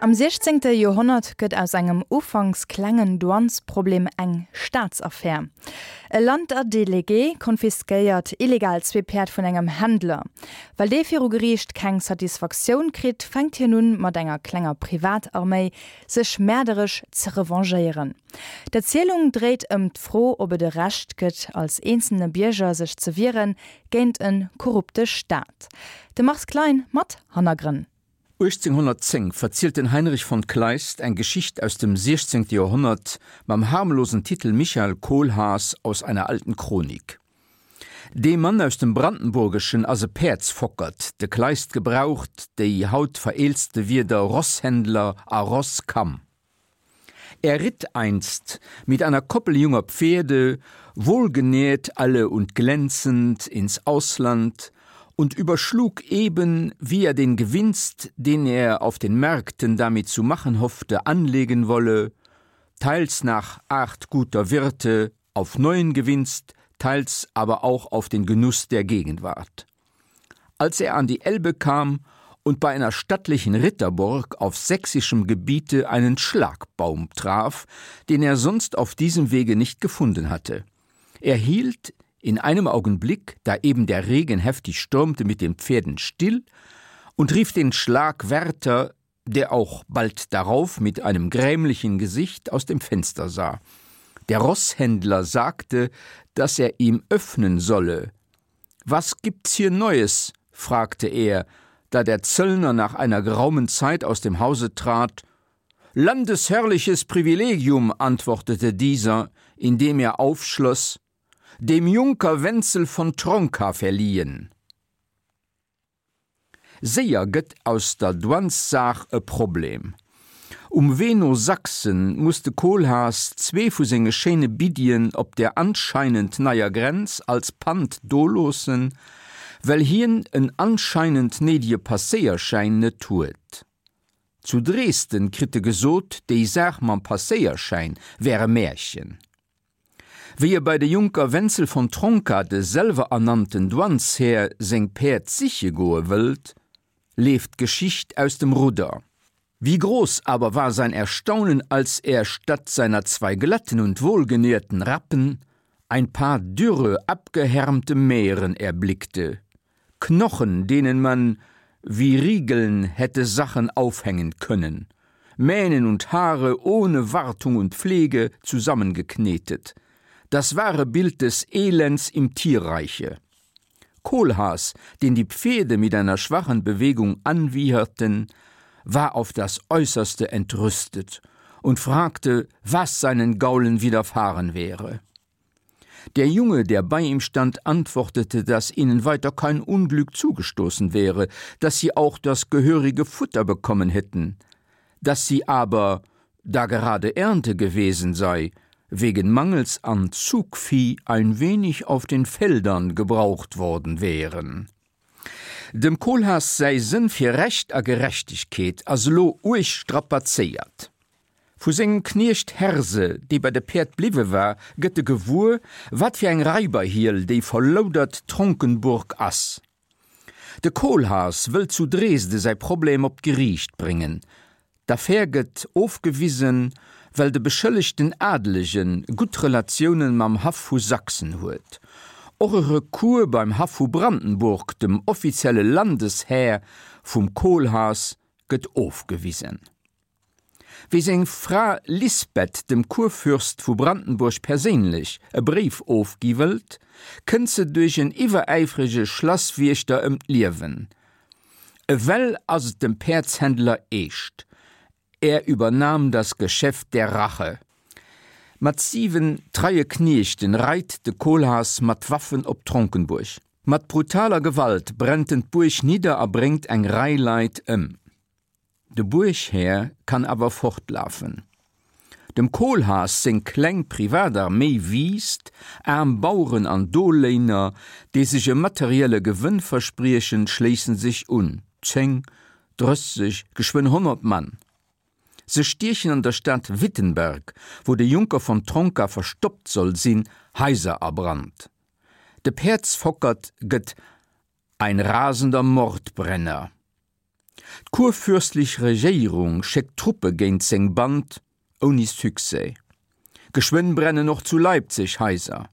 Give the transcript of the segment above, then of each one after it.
Am siechzéngte Joerhonnert gëtt aus engem ufanks klengen Douanesproblem eng Staatsaffär. E Landerdelegué konfiskéiert illegal zwee Päerd vun engem Händler. Well dee viru Geriicht keng Satisfaktioun kritt, fänkt hien un, mat enger klenger Privatarméi sech mäerderesch ze revanchéieren. D'Erzielung dréit ëm d'Fro, ob et e Recht gëtt, als eenzelne Bierger sech ze wieren géint e korrupte Staat. De Mars Klein mat Hannergrënn. 1810 verzielt den Heinrich von Kleist eng Geschicht aus dem 16. Joerhonnert mam harmlosen Titel Michael Kohlhaas aus einer alten Chronik. Dee Mann aus dem Brandenburgeschen ass e Päerdsfockert, de Kleist gebraucht déi haut vereelzte Wierder Rosshändler a Rosskamm. Er ritt einst mit einer Koppel junger Pferde, wohlgenährt alle und glänzend, ins Ausland und überschlug eben, wie er den Gewinst, den er auf den Märkten damit zu machen hoffte, anlegen wolle, teils nach Art guter Wirte auf neuen Gewinst, teils aber auch auf den Genuss der Gegenwart. Als er an die Elbe kam und bei einer stattlichen Ritterburg auf sächsischem Gebiete einen Schlagbaum traf, den er sonst auf diesem Wege nicht gefunden hatte. Er hielt in einem Augenblick, da eben der Regen heftig stürmte, mit den Pferden still und rief den Schlagwärter, der auch bald darauf mit einem grämlichen Gesicht aus dem Fenster sah. Der Rosshändler sagte, dass er ihm öffnen solle. Was gibt's hier Neues? fragte er, da der Zöllner nach einer geraumen Zeit aus dem Hause trat. Landesherrliches Privilegium, antwortete dieser, indem er aufschloss, dem Junker Wenzel von Tronka verliehen. Séier gëtt aus der Douanessaach e Problem. Um Wee no Sachsen muss de Kohlhaas zwee vu senge schéine Biddien op der anscheinend neier Grenz als Pand doloossen, well hien en anscheinend néidege Passéierschäin net huet. Zu Dresden kritt e gesot, déi Saach mam Passéierschäin wär e Märchen. Wéi e bei de Junker Wenzel von Tronka, de selwerernannten Douaneshär, seng Päerd siche goe wëllt, leeft d'Geschicht aus dem Rudder. Wie groß aber war sein Erstaunen, als er statt seiner zwei glatten und wohlgenährten Rappen ein paar dürre, abgehärmte Mähren erblickte, Knochen, denen man wie Riegeln hätte Sachen aufhängen können, Mähnen und Haare ohne Wartung und Pflege zusammengeknetet. Das wahre Bild des Elends im Tierreiche. Kohlhaas, den die Pferde mit einer schwachen Bewegung anwieherten, war auf das Äußerste entrüstet und fragte, was seinen Gaulen widerfahren wäre. Der Junge, der bei ihm stand, antwortete, dass ihnen weiter kein Unglück zugestoßen wäre, dass sie auch das gehörige Futter bekommen hätten, dass sie aber, da gerade Ernte gewesen sei, wegen Mangels an Zugvieh ein wenig auf den Feldern gebraucht worden wären. Dem Kohlhaas säi Sënn fir Recht a Gerechtegkeet ass elo uerg strapazéiert. Vu sengem Kniecht Herse, dee bei de Päerd bliwwe war, gëtt e gewuer, wat fir eng Raiberhiel déi verloudert Tronkenburg ass. De Kohlhaas wëllt zu Dresde säi Problem op d'Geriicht bréngen. D'Affär gëtt ofgewisen, well de beschëllegten Adelege gutt Relatioune mam Haff vu Sachsen huet. Och e Recours beim Haff vu Brandenburg, dem offizielle Landeshär vum Kohlhaas, gëtt ofgewisen. Wéi seng Fra Lisbeth dem Kurfürst vu Brandenburg perséinlech e Bréif ofgi wëllt, kënnt se duerch en iwweräifrege Schlasswiechter ëm d'Liewen. Ewell ass et dem Päerdshändler eescht, Er übernahm das Geschäft der Rache. Mat 7 treie Kniechten reit de Kohlhaas mat Waffen op Tronkenburg. Mat brutaler Gewalt brennt en d'Buerg nidder a bréngt eng Rei Leit ëm. De Buerghär kann awer fortlafen. Dem Kohlhaas seng kleng Privatarméi wiisst, aarm Baueren an Doléiner, déi sech e materielle Gewënn verspriechen, schléissen sech un, 10, 30, geschwënn 100 Mann. Se stiechen an der Stad Wittenberg, wou de Junker von Tronka verstoppt soll sinn, Haiser a Brand. De Päerdsfockert gëtt ein rasender Mordbrenner. D'kurfürstlich Regéierung schéckt Truppe géint seng Band, ouni Succès. Geschwënn brennen och zu Leipzig Haiser.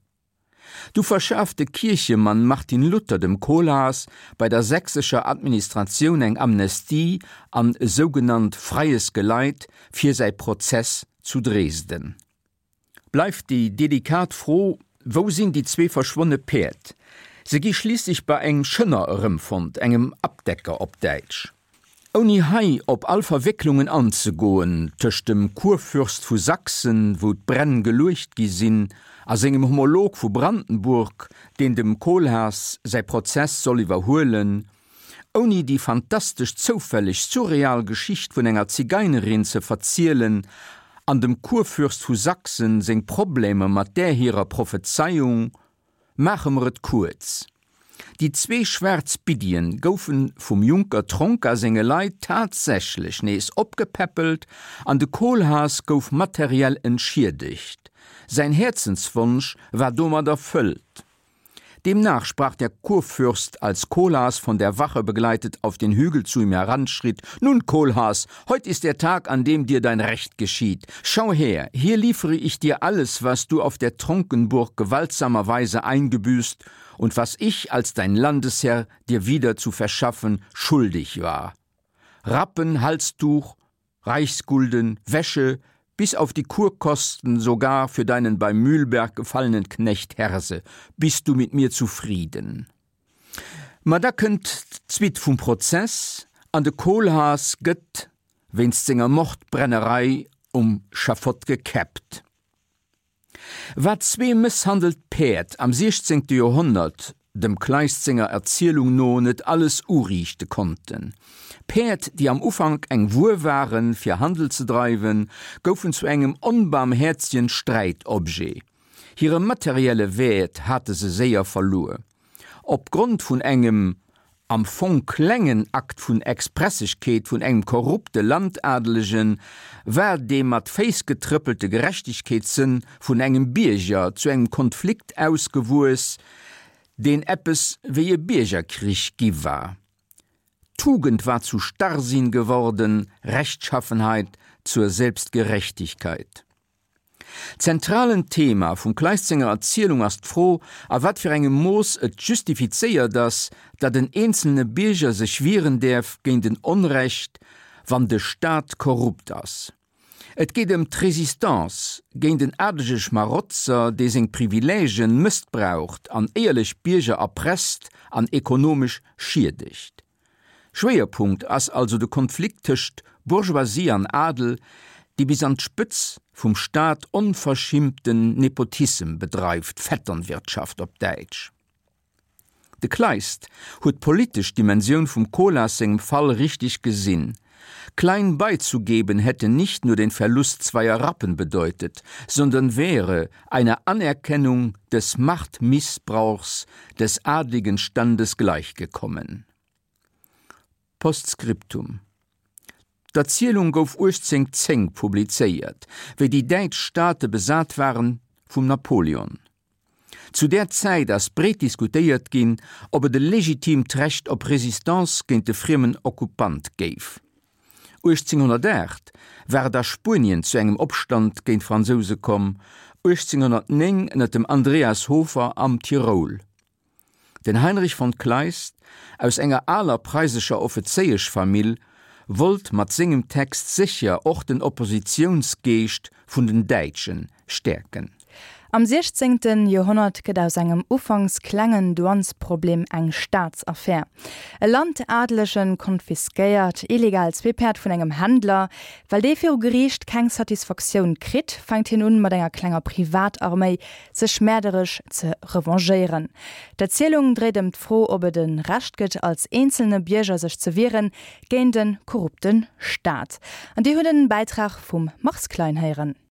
Du verschaaft de Kierchemann Martin Luther dem Kohlhaas bei der sächsescher Administratioun eng Amnestie an e sougenannt freies Geleit fir säi Prozess zu Dresden. Bleift déi delikat Fro, Wou sinn déi zwee verschwonne Päerd? Se gi schliisslech bei engem Schënner erëmfonnt, engem Abdecker op Däitsch. Ouni hei op all Verwécklungen anzegoen tëscht dem Kurfürst vu Sachsen, wou d'Bränn geluecht gi sinn, a sengem Homolog vu Brandenburg, deen dem Kohlhaas säi Prozess soll iwwerhuelen, Ouni déi fantastesch zoufälleg surreal Geschicht vun enger Zigeinerin ze verzielen an dem Kurfürst vu Sachsen seng Problemer mat där hirer Prophezeiung, maache mer et kuerz, Déi zwee schwaarz Biddien goufe vum Junker Tronka senge Leit tatsächlech nees opgepäppelt an de Kohlhaas gouf materiell entschiedegt. Säin Häerzenswonsch war domat erfëllt. Demnach sprach der Kurfürst, als Kohlhaas von der Wache begleitet auf den Hügel zu ihm heranschritt: Nun, Kohlhaas, heut ist der Tag, an dem dir dein Recht geschieht. Schau her, hier liefere ich dir alles, was du auf der Tronkenburg gewaltsamerweise eingebüßt und was ich als dein Landesherr dir wieder zu verschaffen schuldig war. Rappen, Halstuch, Reichsgulden, Wäsche, bis auf die Kurkosten sogar für deinen bei Mühlberg gefallenen Knecht Herse, bist du mit mir zufrieden? Ma da kënnt d'Suite vum Prozess an de Kohlhaas gëtt wéinst senger Mordbrennerei um Schafott gekäppt. Wat zwee mësshandelt Päerd am siechzéngte Joerhonnert dem Kleist senger Erzielung no net alles uriichte konnten. Päerd, déi am Ufank eng Wuer waren, fir Handel ze dreiwen, goufen zu engem onbarmhäerzegen Sträitobjet. Hire materielle Wäert hate se séier verluer. Opgrond vun engem am Fong klengen Akt vun Expressegkeet vun engem korrupte Landadelegen war dee mat Féiss getrëppelte Gerechtegkeetssënn vun engem Bierger zu engem Konflikt ausgewuess, deen eppes wéi e Biergerkrich gi war. Tugend war zu Starrsinn geworden, Rechtschaffenheit zur Selbstgerechtigkeit. Zentralen Thema vum Kleist senger Erzielung ass d'Fro, a wat fir engem Mooss et justifizéiert ass, datt en eenzelne Bierger sech wieren däerf géint en Onrecht, wann de Staat korrupt ass. Et geet ëm d'Résistance géint en adelege Schmarotzer, dee seng Privilègen mëssbraucht an éierlech Bierger erpresst an ekonomesch schiedegt. Schwéierpunkt ass also de Konflikt tëscht Bourgeoisie an Adel, dee bis an d'Spëtz vum Staat onverschimmten Nepotissem bedreift, Vetternwirtschaft op Däitsch. De Kleist huet d'politesch Dimensioun vum Kohlhaas sengem Fall richteg gesinn, Klein beizugeben hätte nicht nur den Verlust zweier Rappen bedeutet, sondern wäre einer Anerkennung des Machtmissbrauchs des adligen Standes gleichgekommen. Postscriptum. D'Erzielung gouf 1810 publizéiert, wéi déi däitsch Staate besat waren vum Napoleon. Zu där Zäit ass breet diskutéiert ginn, ob et e legitiimt Recht op Resistance géint de friemen Okkupant géif. 1808 war et a Spuenien zu engem Opstand géint d'Fransouse komm, 1809 ënner dem Andreas Hofer am Tiroul. Den Heinrich von Kleist, aus enger aler preisescher Offezéieschfamill, wollt mat sengem Text sécher och den Oppositiounsgeescht vun den Däitsche stäerken. Am siechzéngten Joerhonnert gëtt aus engem ufanks klengen Douanesproblem eng Staatsaffär. E Landadelegen konfiskéiert illegal zwee Päerd vun engem Händler. Well dee viru Geriicht keng Satisfaktioun kritt, fänkt hien un, mat enger klenger Privatarméi sech mäerderesch ze revanchéieren. D'Erzielung dréit ëm d'Fro, ob et e Recht gëtt, als eenzelne Bierger sech ze wieren géint e korrupte Staat. An Dir hutt en Bäitrag vum Mars Klein héieren.